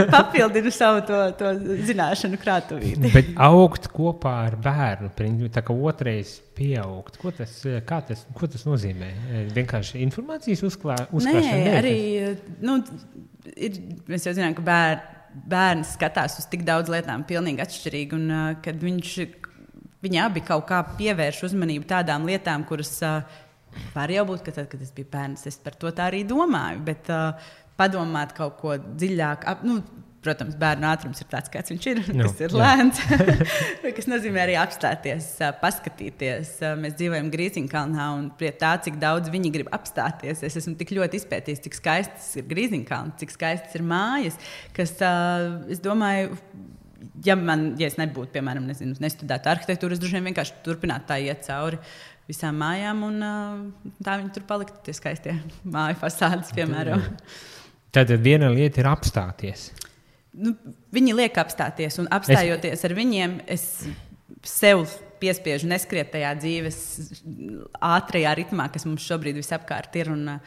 S2: Papildinu savu to zināšanu krātuvīti.
S1: Bet augt kopā ar bērnu, tā kā otrais pieaugt, ko tas nozīmē? Vienkārši informācijas uzkrāšana?
S2: Nē, arī, mēs jau zinām, ka bērns skatās uz tik daudz lietām pilnīgi atšķirīgi, un kad viņi abi kaut kā pievērš uzmanību tādām lietām, kuras var jau būt, ka tad, kad es biju bērns, es par to tā arī domāju, bet padomāt kaut ko dziļāk. Protams, bērnu ātrums ir tāds, kāds viņš ir, kas ir lēns, kas nozīmē arī apstāties, paskatīties. Mēs dzīvojam Grīziņkalnā, un pie tā, cik daudz viņi grib apstāties, es esmu tik ļoti izpētījis, cik skaists ir Grīziņkalns, cik skaists ir mājas, kas, es domāju, ja es nebūtu, piemēram, nestudētu arhitektūru, es droši vien vienkārši turpinātu tā iet cauri visām mājām, un tā viņi tur paliktu, tie skaistie māju fasādes, piemēram.
S1: Tad viena lieta ir apstāties.
S2: Nu, viņi liek apstāties, un apstājoties ar viņiem, es sev piespiežu neskriet tajā dzīves ātrajā ritmā, kas mums šobrīd visapkārt ir, un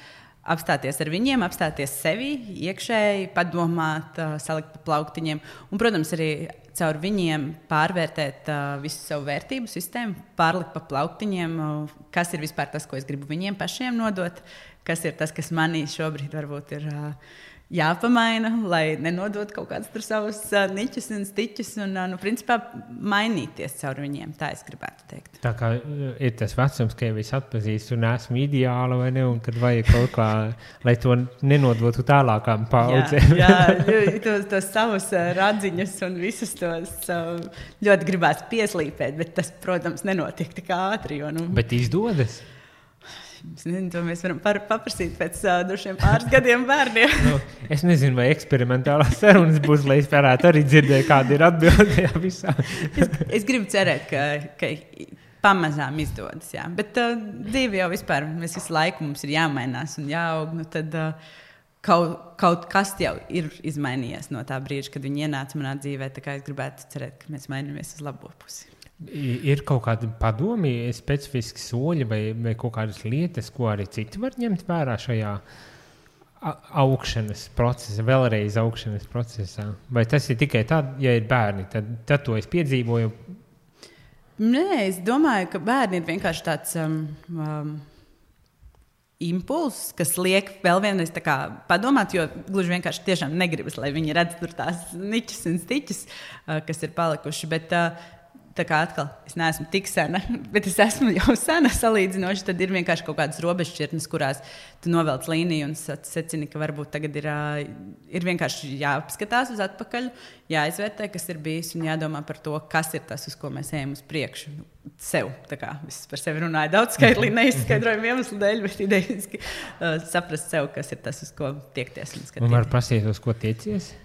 S2: apstāties ar viņiem, apstāties sevi, iekšēji, padomāt, salikt pa plauktiņiem. Un, protams, arī caur viņiem pārvērtēt visu savu vērtību sistēmu, pārlikt pa plauktiņiem, kas ir vispār tas, ko es gribu viņiem pašiem nodot, kas ir tas, kas manī šobrīd varbūt ir jāpamaina, lai nenodot kaut kādas tur savas niķus un stiķus un, principā, mainīties caur viņiem. Tā es gribētu teikt. Tā kā
S1: ir tas vecums, ka jau es atpazīstu un esmu ideāla, vai ne, un kad vajag kaut kā, lai to nenodotu tālākām paudzēm.
S2: Jā, tos savus radziņus un visus tos ļoti gribētu pieslīpēt, bet tas, protams, nenotiek tik ātri. Jo,
S1: Bet izdodas?
S2: Es nezinu, to mēs varam paprasīt pēc drošiem pāris gadiem bērniem.
S1: Es nezinu, vai eksperimentālās sarunas būs, lai es varētu arī dzirdēt, kāda ir atbilde visā.
S2: Es gribu cerēt, ka pamazām izdodas, jā. Bet dzīve jau vispār, mēs visu laiku mums ir jāmainās un jāaug, tad kaut kas jau ir izmainījies no tā brīža, kad viņi ienāca manā dzīvē, tā kā es gribētu cerēt, ka mēs mainamies uz labo pusi.
S1: Ir kaut kādi padomi, specifiski soļi vai kaut kādas lietas, ko arī citi var ņemt vērā šajā augšanas procesā, vēlreiz augšanas procesā? Vai tas ir tikai tad, ja ir bērni, tad to es piedzīvoju?
S2: Nē, es domāju, ka bērni ir vienkārši tāds impulss, kas liek vēl vienreiz tā kā padomāt, jo gluži vienkārši tiešām negribas, lai viņi redz tur tās niķus un stiķus, kas ir palikuši, bet tā kā atkal, es neesmu tik sena, bet es esmu jau sena salīdzinoši, tad ir vienkārši kaut kādas robežšķirtnes, kurās tu novelc līniju un secini, ka varbūt tagad ir vienkārši jāapskatās uz atpakaļ, jāizvērtē, kas ir bijis un jādomā par to, kas ir tas, uz ko mēs ejam uz priekšu. Sev, tā kā es par sevi runāju daudz skaitlī, neizskaidrojumu iemeslu dēļ, bet idejiski saprast sev, kas ir tas, uz ko tiekties un skatīties.
S1: Un var prasīt, uz ko tiecies?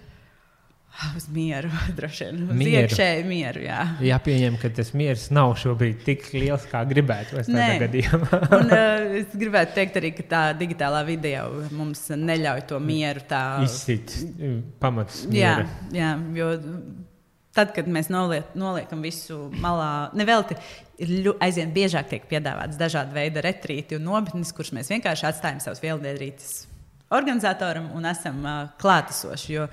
S2: Uz mieru, droši vien. Uz iekšēju mieru, jā.
S1: Jāpieņem, ka tas miers nav šobrīd tik liels, kā gribētu tādā gadījumā.
S2: Un es gribētu teikt arī, ka tā digitālā vide jau mums neļauj to mieru tā
S1: izsit pamats miera.
S2: Jā, jo tad, kad mēs noliekam visu malā, nevelti aizvien biežāk tiek piedāvāts dažādi veidi retrīti un nometnes, kurus mēs vienkārši atstājam savus vieldienrītes organizatoram un esam klātesoši, jo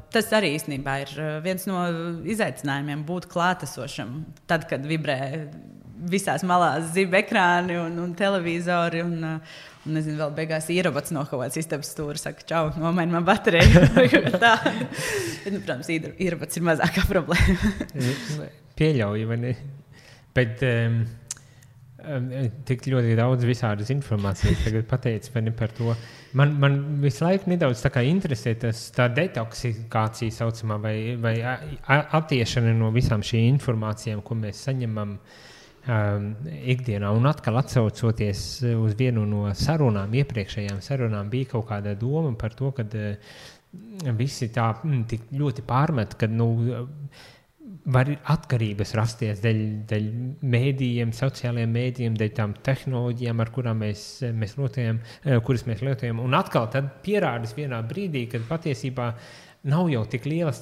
S2: tas arī īstenībā ir viens no izaicinājumiem būt klātesošam. Tad, kad vibrē visās malās ziba ekrāni un televizori un nezinu, vēl beigās ierobots no kaut kāds istabas stūra, saka, čau, nomaini man bateriju. Protams, ierobots ir mazākā problēma.
S1: Pieļauju, vai ne? Bet tik ļoti daudz visādas informācijas tagad pateicis par to. Man visu laiku nedaudz tā kā interesē tā detoksikācija saucamā vai attiešana no visām šīm informācijām, ko mēs saņemam ikdienā. Un atkal atsaucoties uz vienu no sarunām, iepriekšējām sarunām, bija kaut kāda doma par to, ka visi tā tik ļoti pārmet, ka var atkarības rasties dēļ mēdījiem, sociālajiem mēdījiem, dēļ tām tehnoloģijām, ar kurām kuras mēs lietojam. Un atkal tad pierādīs vienā brīdī, kad patiesībā nav jau tik lielas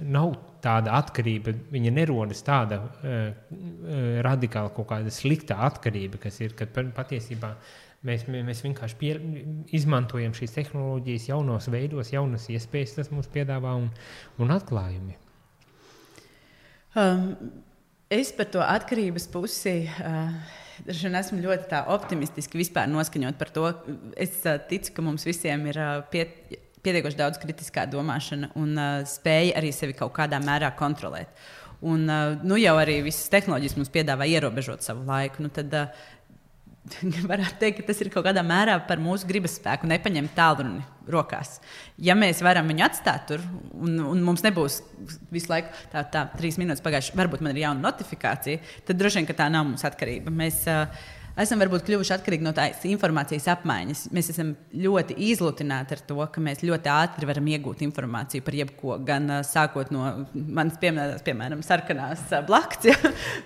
S1: nav tāda atkarība, viņa nerodas tāda radikāla kaut kāda slikta atkarība, kas ir, kad patiesībā mēs vienkārši izmantojam šīs tehnoloģijas jaunos veidos, jaunas iespējas, tas mums piedāvā un atklājumi.
S2: Es par to atkarības pusi esmu ļoti tā optimistiski vispār noskaņot par to. Es ticu, ka mums visiem ir pietiekoši daudz kritiskā domāšana un spēja arī sevi kaut kādā mērā kontrolēt. Un jau arī visas tehnoloģijas mums piedāvā ierobežot savu laiku. Tad varētu teikt, ka tas ir kaut kādā mērā par mūsu gribas spēku nepaņemt tālruni rokās. Ja mēs varam viņu atstāt tur un mums nebūs visu laiku tā 3 minūtes pagājuši, varbūt man ir jauna notifikācija, tad droši vien, ka tā nav mums atkarība. Mēs esam varbūt kļuvuši atkarīgi no tās informācijas apmaiņas. Mēs esam ļoti izlutināti ar to, ka mēs ļoti ātri varam iegūt informāciju par jebko, gan sākot no manas pieminētās, piemēram, sarkanās blakts, ja,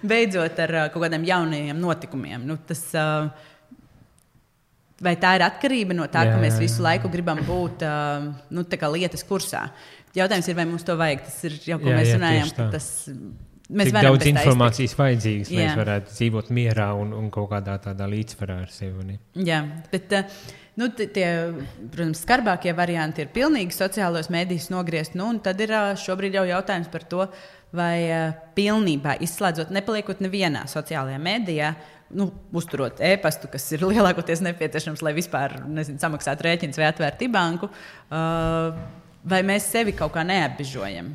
S2: beidzot ar kaut kādiem jaunajiem notikumiem. Tas, vai tā ir atkarība no tā, ka mēs visu laiku gribam būt tā kā lietas kursā? Jautājums ir, vai mums to vajag. Tas ir jau, ko mēs runājam, ka tas...
S1: Cik daudz informācijas vajadzīgas, lai mēs varētu dzīvot mierā un kaut kādā tādā līdzsvarā ar sevi.
S2: Jā, bet tie, protams, skarbākie varianti ir pilnīgi sociālos mēdījus nogriezt. Un tad ir šobrīd jau jautājums par to, vai pilnībā izslēdzot, nepaliekot nevienā sociālajā mēdījā, uzturot e-pastu, kas ir lielākoties nepieciešams, lai vispār samaksātu rēķinus vai atvērtu banku, vai mēs sevi kaut kā neapbežojam.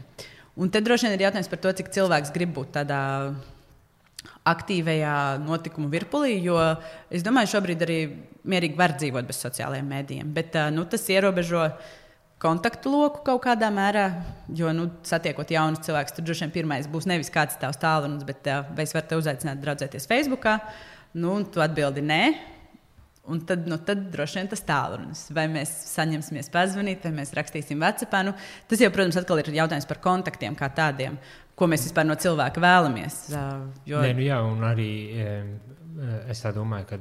S2: Un tad droši vien ir jautājums par to, cik cilvēks grib būt tādā aktīvajā notikumu virpulī, jo es domāju, šobrīd arī mierīgi var dzīvot bez sociālajiem mēdījiem. Bet tas ierobežo kontaktu loku kaut kādā mērā, jo satiekot jaunus cilvēkus, tur droši vien pirmais būs nevis kāds tavs tālrunis, bet vai es varu te uzaicināt draudzēties Facebookā, un tu atbildi nē. Un tad droši vien tas tālrunis. Vai mēs saņemsimies pazvanīt, vai mēs rakstīsim WhatsAppā. Tas jau, protams, atkal ir jautājums par kontaktiem kā tādiem, ko mēs vispār no cilvēka vēlamies.
S1: Jā, un arī es tā domāju, ka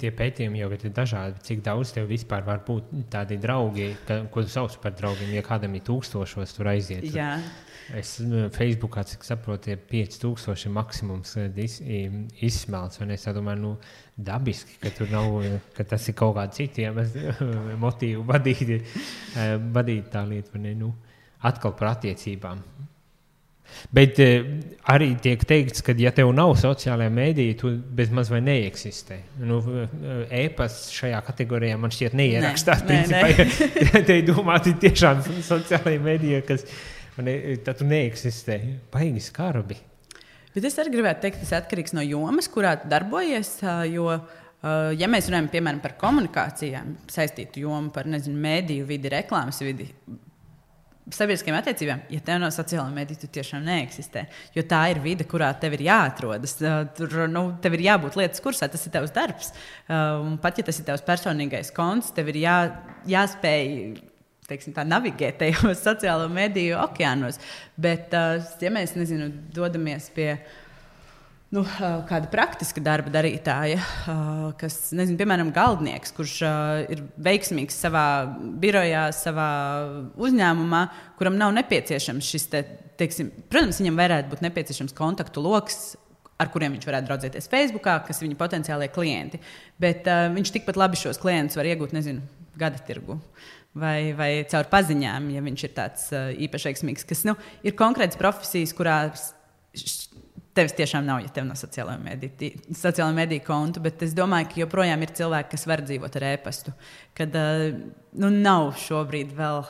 S1: tie pētījumi jau ir dažādi. Cik daudz tev vispār var būt tādi draugi, ko tu sauc par draugiem, ja kādam ir 1000 tur aiziet.
S2: Jā.
S1: Es Facebookā, cik saprotu, 5000 maksimums izsmelts. Un es domāju, dabiski, ka tur nav, ka tas ir kaut kādi citiem motīvu vadīt tā lieta, atkal par attiecībām. Bet arī tiek teikts, ka ja tev nav sociālajā mēdīja, tu bez maz vai neeksistē. E-pasts šajā kategorijā man šķiet neierakstās. Principā, te domāti tiešām sociālajā mēdīja, kas tad tu neeksistē. Baigi skarbi.
S2: Bet es arī gribētu teikt, tas atkarīgs no jomas, kurā tu darbojies, jo, ja mēs runājam, piemēram, par komunikācijām, saistītu jomu par, mēdīju vidi, reklāmas vidi, sabiedriskajām attiecībām, ja tev nav sociālā mēdīja, tu tiešām neeksistē, jo tā ir vide, kurā tev ir jāatrodas, tur, tev ir jābūt lietas kursā, tas ir tavs darbs, un pat, ja tas ir tavs personīgais konts, tev ir jāspēj navigēt tajos sociālo mediju okeānos. Bet, ja mēs dodamies pie kāda praktiska darba darītāja, kas, piemēram, galdnieks, kurš ir veiksmīgs savā birojā, savā uzņēmumā, kuram nav nepieciešams šis, protams, viņam varētu būt nepieciešams kontaktu loks, ar kuriem viņš varētu draudzēties Facebookā, kas ir viņa potenciālie klienti. Bet viņš tikpat labi šos klientus var iegūt, gada tirgu. Vai caur paziņām, ja viņš ir tāds īpaši veiksmīgs, kas ir konkrētas profesijas, kurās tevis tiešām nav, ja tev nav sociālā mediju kontu, bet es domāju, ka joprojām ir cilvēki, kas var dzīvot ar e-pastu, kad nav šobrīd vēl,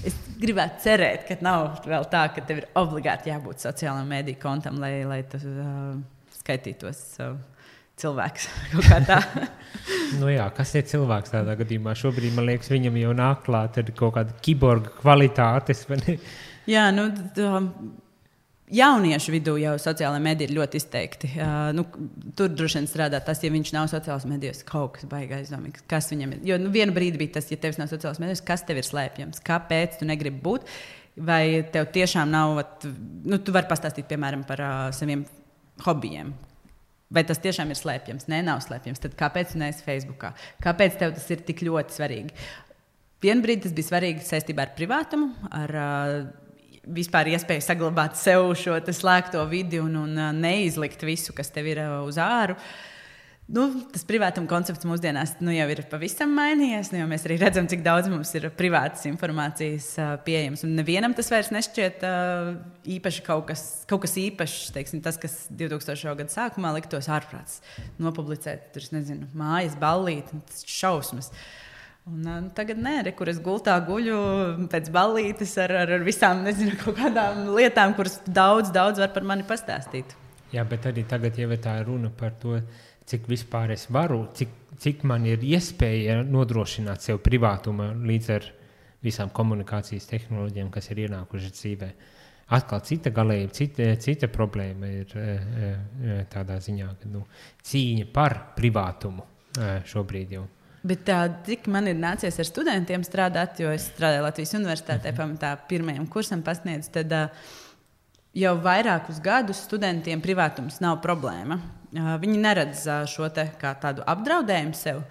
S2: es gribētu cerēt, ka nav vēl tā, ka tev ir obligāti jābūt sociālā mediju kontam, lai tu skaitītos cilvēks kaut kā tā.
S1: Jā, kas ir cilvēks tādā gadījumā? Šobrīd, man liekas, viņam jau nāk klāt ar kaut kādu kiborga kvalitātes.
S2: Jā, jauniešu vidū jau sociālā medija ir ļoti izteikti. Tur droši vien strādā tas, ja viņš nav sociālās medijas, kaut kas baigi aizdomīgs. Kas viņam ir? Jo vienu brīdi bija tas, ja tev nav sociālās medijas, kas tev ir slēpjams? Kāpēc tu negribi būt? Vai tev tiešām nav, tu vari pastāstīt, piemēram, par saviem hobijiem. Vai tas tiešām ir slēpjams? Nē, nav slēpjams. Tad kāpēc tu neesi Facebookā? Kāpēc tev tas ir tik ļoti svarīgi? Vienbrīd tas bija svarīgi saistībā ar privātumu, ar vispār iespēju saglabāt sev šo slēgto vidi un neizlikt visu, kas tev ir uz āru. Tas privātuma koncepts mūsdienās jau ir pavisam mainījies. Jo mēs arī redzam, cik daudz mums ir privātas informācijas pieejams. Un nevienam tas vairs nešķiet īpaši kaut kas īpašs. Tas, kas 2000. Gada sākumā liktos ārprāts. Nopublicēt, mājas ballīti, tas šausmas. Un tagad kur es gultā guļu pēc ballītes ar visām, kaut kādām lietām, kuras daudz var par mani pastāstīt.
S1: Jā, bet arī tagad jau tā runa par to, cik vispār es varu, cik man ir iespēja nodrošināt sev privātumu līdz ar visām komunikācijas tehnoloģijām, kas ir ienākušas dzīvē. atkal cita galība, cita problēma ir tādā ziņā, ka cīņa par privātumu šobrīd jau.
S2: Bet cik man ir nācies ar studentiem strādāt, jo es strādāju Latvijas universitātē, pamatā pirmajam kursam pasniedzu, tad jau vairākus gadus studentiem privātums nav problēma. Viņi neredz šo te kā tādu apdraudējumu sev.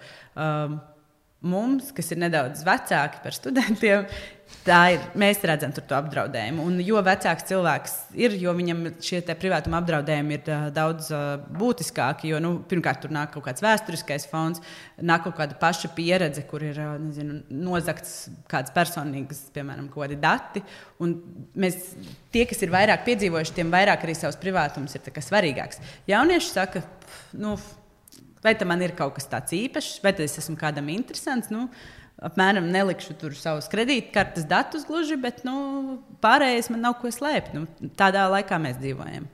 S2: Mums, kas ir nedaudz vecāki par studentiem, mēs redzam tur to apdraudējumu. Un jo vecāks cilvēks ir, jo viņam šie privātuma apdraudējumi ir daudz būtiskāki. Jo, pirmkārt, tur nāk kaut kāds vēsturiskais fons, nāk kaut kāda paša pieredze, kur ir nozagts kāds personīgas, piemēram, kaut kādi dati. Un tie, kas ir vairāk piedzīvojuši, tiem vairāk arī savs privātums ir svarīgāks. Jaunieši saka, vai tam man ir kaut kas tāds īpašs, vai es esmu kādam interesants. Apmēram nelikšu tur savus kredītkartes datus gluži, bet pārējais man nav ko slēpt. Tādā laikā mēs dzīvojam.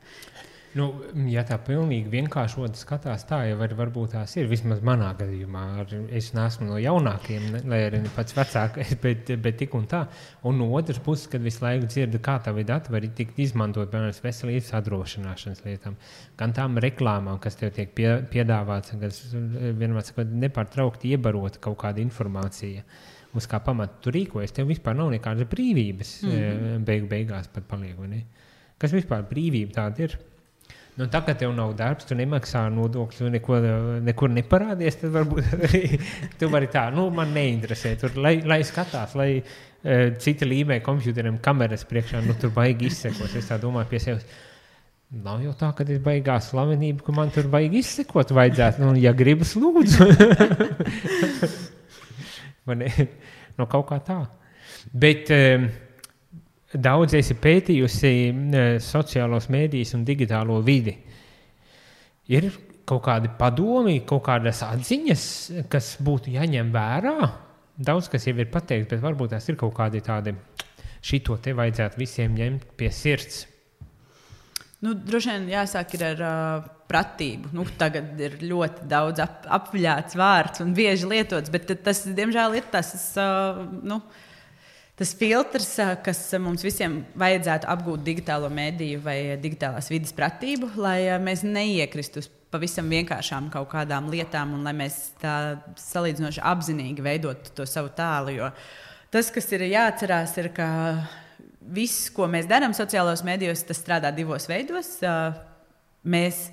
S1: Ja tā pilnīgi vienkāršot skatās, tā jau varbūt tās ir. Vismaz manā gadījumā. Es neesmu no jaunākiem, lai arī pats vecākais, bet tik un tā. Un no otras puses, kad visu laiku dzirdu, kā tavi dati var tikt izmantot, piemēram, veselības apdrošināšanas lietām, gan tām reklāmām, kas tev tiek piedāvāts, kas vienmēr sakot, nepārtraukti iebarot kaut kāda informācija, uz kā pamata tu rīkojies. Tev vispār nav nekādas brīvības beigās pat paliek, vai ne? Kas vispār brīvība tāda ir? Tā, ka tev nav darbs, tu nemaksā nodokļus, nekur neparādies, tad varbūt arī tu vari tā, man neinteresē. Tur, lai skatās, lai citi līmē kompjuteriem kameras priekšā, tur baigi izsekos. Es tā domāju pie sevis, nav jau tā, ka es baigās slavenību, ka man tur baigi izsekot vajadzētu. Ja gribas, lūdzu. Kaut kā tā. Bet... Daudz esi pētījusi sociālos mēdījus un digitālo vidi. Ir kaut kādi padomi, kaut kādas atziņas, kas būtu jāņem vērā? Daudz, kas jau ir pateikts, bet varbūt tās ir kaut kādi tādi, šito te vajadzētu visiem ņemt pie sirds.
S2: Droši vien jāsāk ir ar pratību. Tagad ir ļoti daudz apviļāts vārds un bieži lietots, bet tas, diemžēl, ir tas filtrs, kas mums visiem vajadzētu apgūt digitālo mediju vai digitālās vides pratību, lai mēs neiekristu uz pavisam vienkāršām kaut kādām lietām un lai mēs tā salīdzinoši apzinīgi veidotu to savu tēlu. Jo tas, kas ir jāatcerās, ir, ka viss, ko mēs darām sociālos medijos, tas strādā divos veidos. Mēs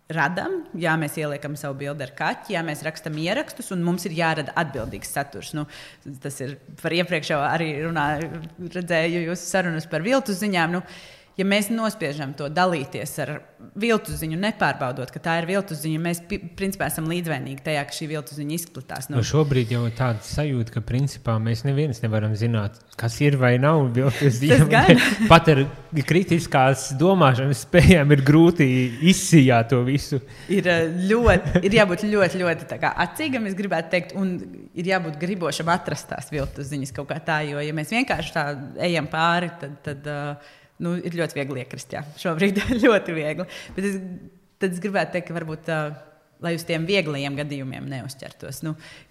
S2: radam, mēs ieliekam savu bildi ar kaķi, mēs rakstam ierakstus, un mums ir jārada atbildīgs saturs. Tas ir par iepriekšējo arī redzēju jūsu sarunas par viltus ziņām. Ja mēs nospiežam to dalīties ar viltus ziņu, nepārbaudot, ka tā ir viltus ziņa, mēs principā esam līdzvainīgi tajā, ka šī viltus ziņa izplatās.
S1: Šobrīd jau ir tāda sajūta, ka principā mēs neviens nevaram zināt, kas ir vai nav viltus ziņa. Pat ar kritiskās domāšanas spējām ir grūti izsijāt to visu.
S2: Ir jābūt ļoti, ļoti tā kā acīgam, es gribētu teikt, un ir jābūt gribošam atrast tās viltus ziņas kaut kā tā, jo ja mēs vienkārši tā ejam pāri, tad ir ļoti viegli iekrist, šobrīd ļoti viegli. Bet es gribētu teikt, ka varbūt, lai uz tiem vieglajiem gadījumiem neuzķertos,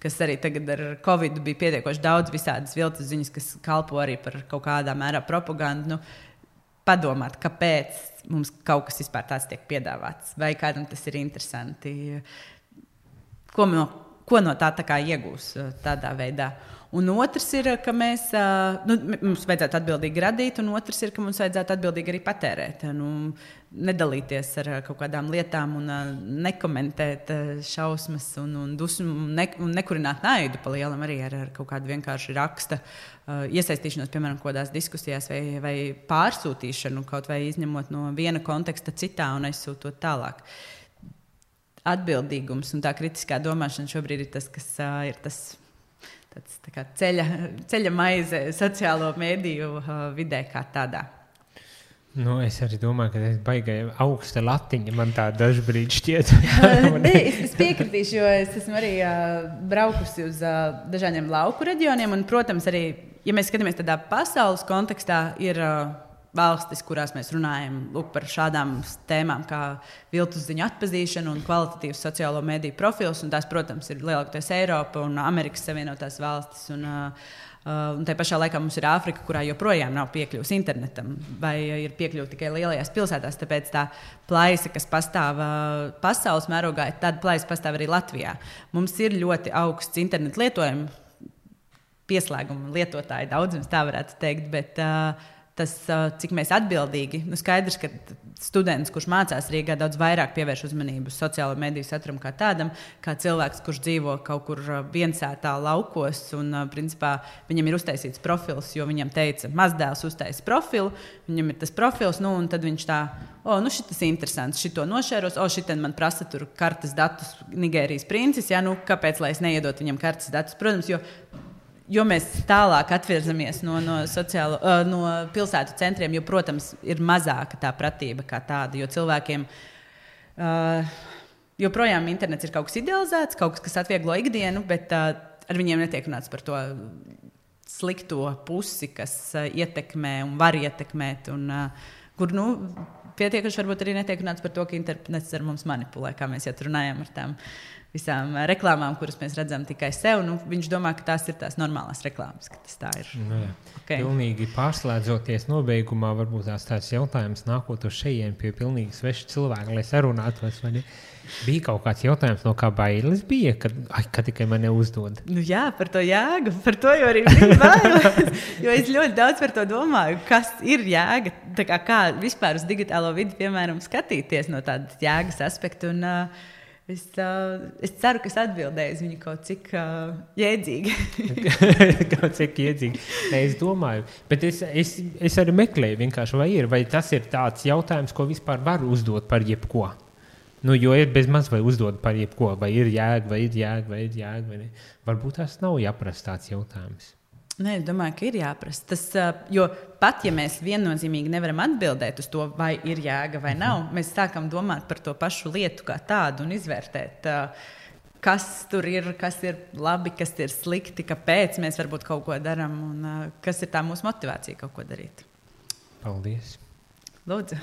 S2: kas arī tagad ar Covid bija pietiekoši daudz visādas viltus ziņas, kas kalpo arī par kaut kādā mērā propagandu, padomāt, kāpēc mums kaut kas vispār tāds tiek piedāvāts, vai kādam tas ir interesanti, ko no tā kā iegūs tādā veidā. Un otrs ir, ka mums vajadzētu atbildīgi radīt, un otrs ir, ka mums vajadzētu atbildīgi arī patērēt. Nedalīties ar kaut kādām lietām un nekomentēt šausmas un dusmu un nekurināt naidu pa lielam arī ar kaut kādu vienkārši raksta iesaistīšanos, piemēram, kodās diskusijās vai pārsūtīšanu, kaut vai izņemot no viena konteksta citā un aizsūtot tālāk. Atbildīgums un tā kritiskā domāšana šobrīd ir tas, kas ir tas tā kā ceļa maize sociālo mediju vidē kā tādā.
S1: Es arī domāju, ka tas baigai augsta latiņa man tā dažbrīd šķiet.
S2: Es piekritīšu, jo es esmu arī braukusi uz dažādiem lauku reģioniem, un, protams, arī, ja mēs skatāmies tādā pasaules kontekstā, ir valstis, kurās mēs runājam par šādām tēmām kā viltus ziņu atpazīšana un kvalitatīvs sociālo mediju profils, un tās, protams, ir lielākoties Eiropa un Amerikas Savienotās valstis un Un tā pašā laikā mums ir Āfrika, kurā joprojām nav piekļuvis internetam, vai ir piekļuvi tikai lielajās pilsētās. Tāpēc tā plaisa, kas pastāv pasaules mērogā, tāda plaisa pastāv arī Latvijā. Mums ir ļoti augsts internetu lietojums, pieslēguma lietotāji daudzums, tā varētu teikt, bet tas, cik mēs atbildīgi, skaidrs, ka students, kurš mācās Rīgā, daudz vairāk pievērš uzmanību sociālo mediju saturam kā tādam, kā cilvēks, kurš dzīvo kaut kur viensētā laukos, un principā viņam ir uztaisīts profils, jo viņam teica, mazdēls uztaisa profilu, viņam ir tas profils, un tad viņš tā, šitas interesants, šito nošēros, šitien man prasa tur kartes datus Nigērijas princis, kāpēc, lai es neiedot viņam kartes datus, protams, jo mēs tālāk atvirzamies no pilsētu centriem, jo, protams, ir mazāka tā pratība kā tāda, jo cilvēkiem joprojām internets ir kaut kas idealizēts, kaut kas atvieglo ikdienu, bet ar viņiem netiek runāts par to slikto pusi, kas ietekmē un var ietekmēt, un kur, pietiekuši varbūt arī netiek runāts par to, ka internets ar mums manipulē, kā mēs jau runājām ar tām visām reklāmām, kuras mēs redzam tikai sev. Viņš domā, ka tās ir tās normālās reklāmas, ka tas tā ir.
S1: Okay. Pilnīgi pārslēdzoties nobeigumā, varbūt tāds jautājums nākot uz šejien pie pilnīgi sveša cilvēka, lai sarunātos, vai ne? Bija kaut kāds jautājums, no kā bailes bija, kad tikai man neuzdod?
S2: Jā, par to jēgu, par to jau arī bija bailes, jo es ļoti daudz par to domāju, kas ir jēga, kā vispār uz digitālo vidi, piemēram, skatīties no tādas jēgas aspektu, un es ceru, ka es atbildēju uz viņu kaut cik jēdzīgi.
S1: Kaut cik jēdzīgi. Es domāju, bet es arī meklēju vienkārši, vai tas ir tāds jautājums, ko vispār var uzdot par jebko. Jo ir bez maz vai uzdod par jebko, vai ir jēga, vai ir jēga, vai ne. Varbūt tas nav jāprasa tāds jautājums.
S2: Nē, es domāju, ka ir jāprasa. Jo pat, ja mēs viennozīmīgi nevaram atbildēt uz to, vai ir jēga vai nav, mēs sākam domāt par to pašu lietu kā tādu un izvērtēt, kas tur ir, kas ir labi, kas ir slikti, kāpēc mēs varbūt kaut ko darām un kas ir tā mūsu motivācija kaut ko darīt.
S1: Paldies!
S2: Lūdzu!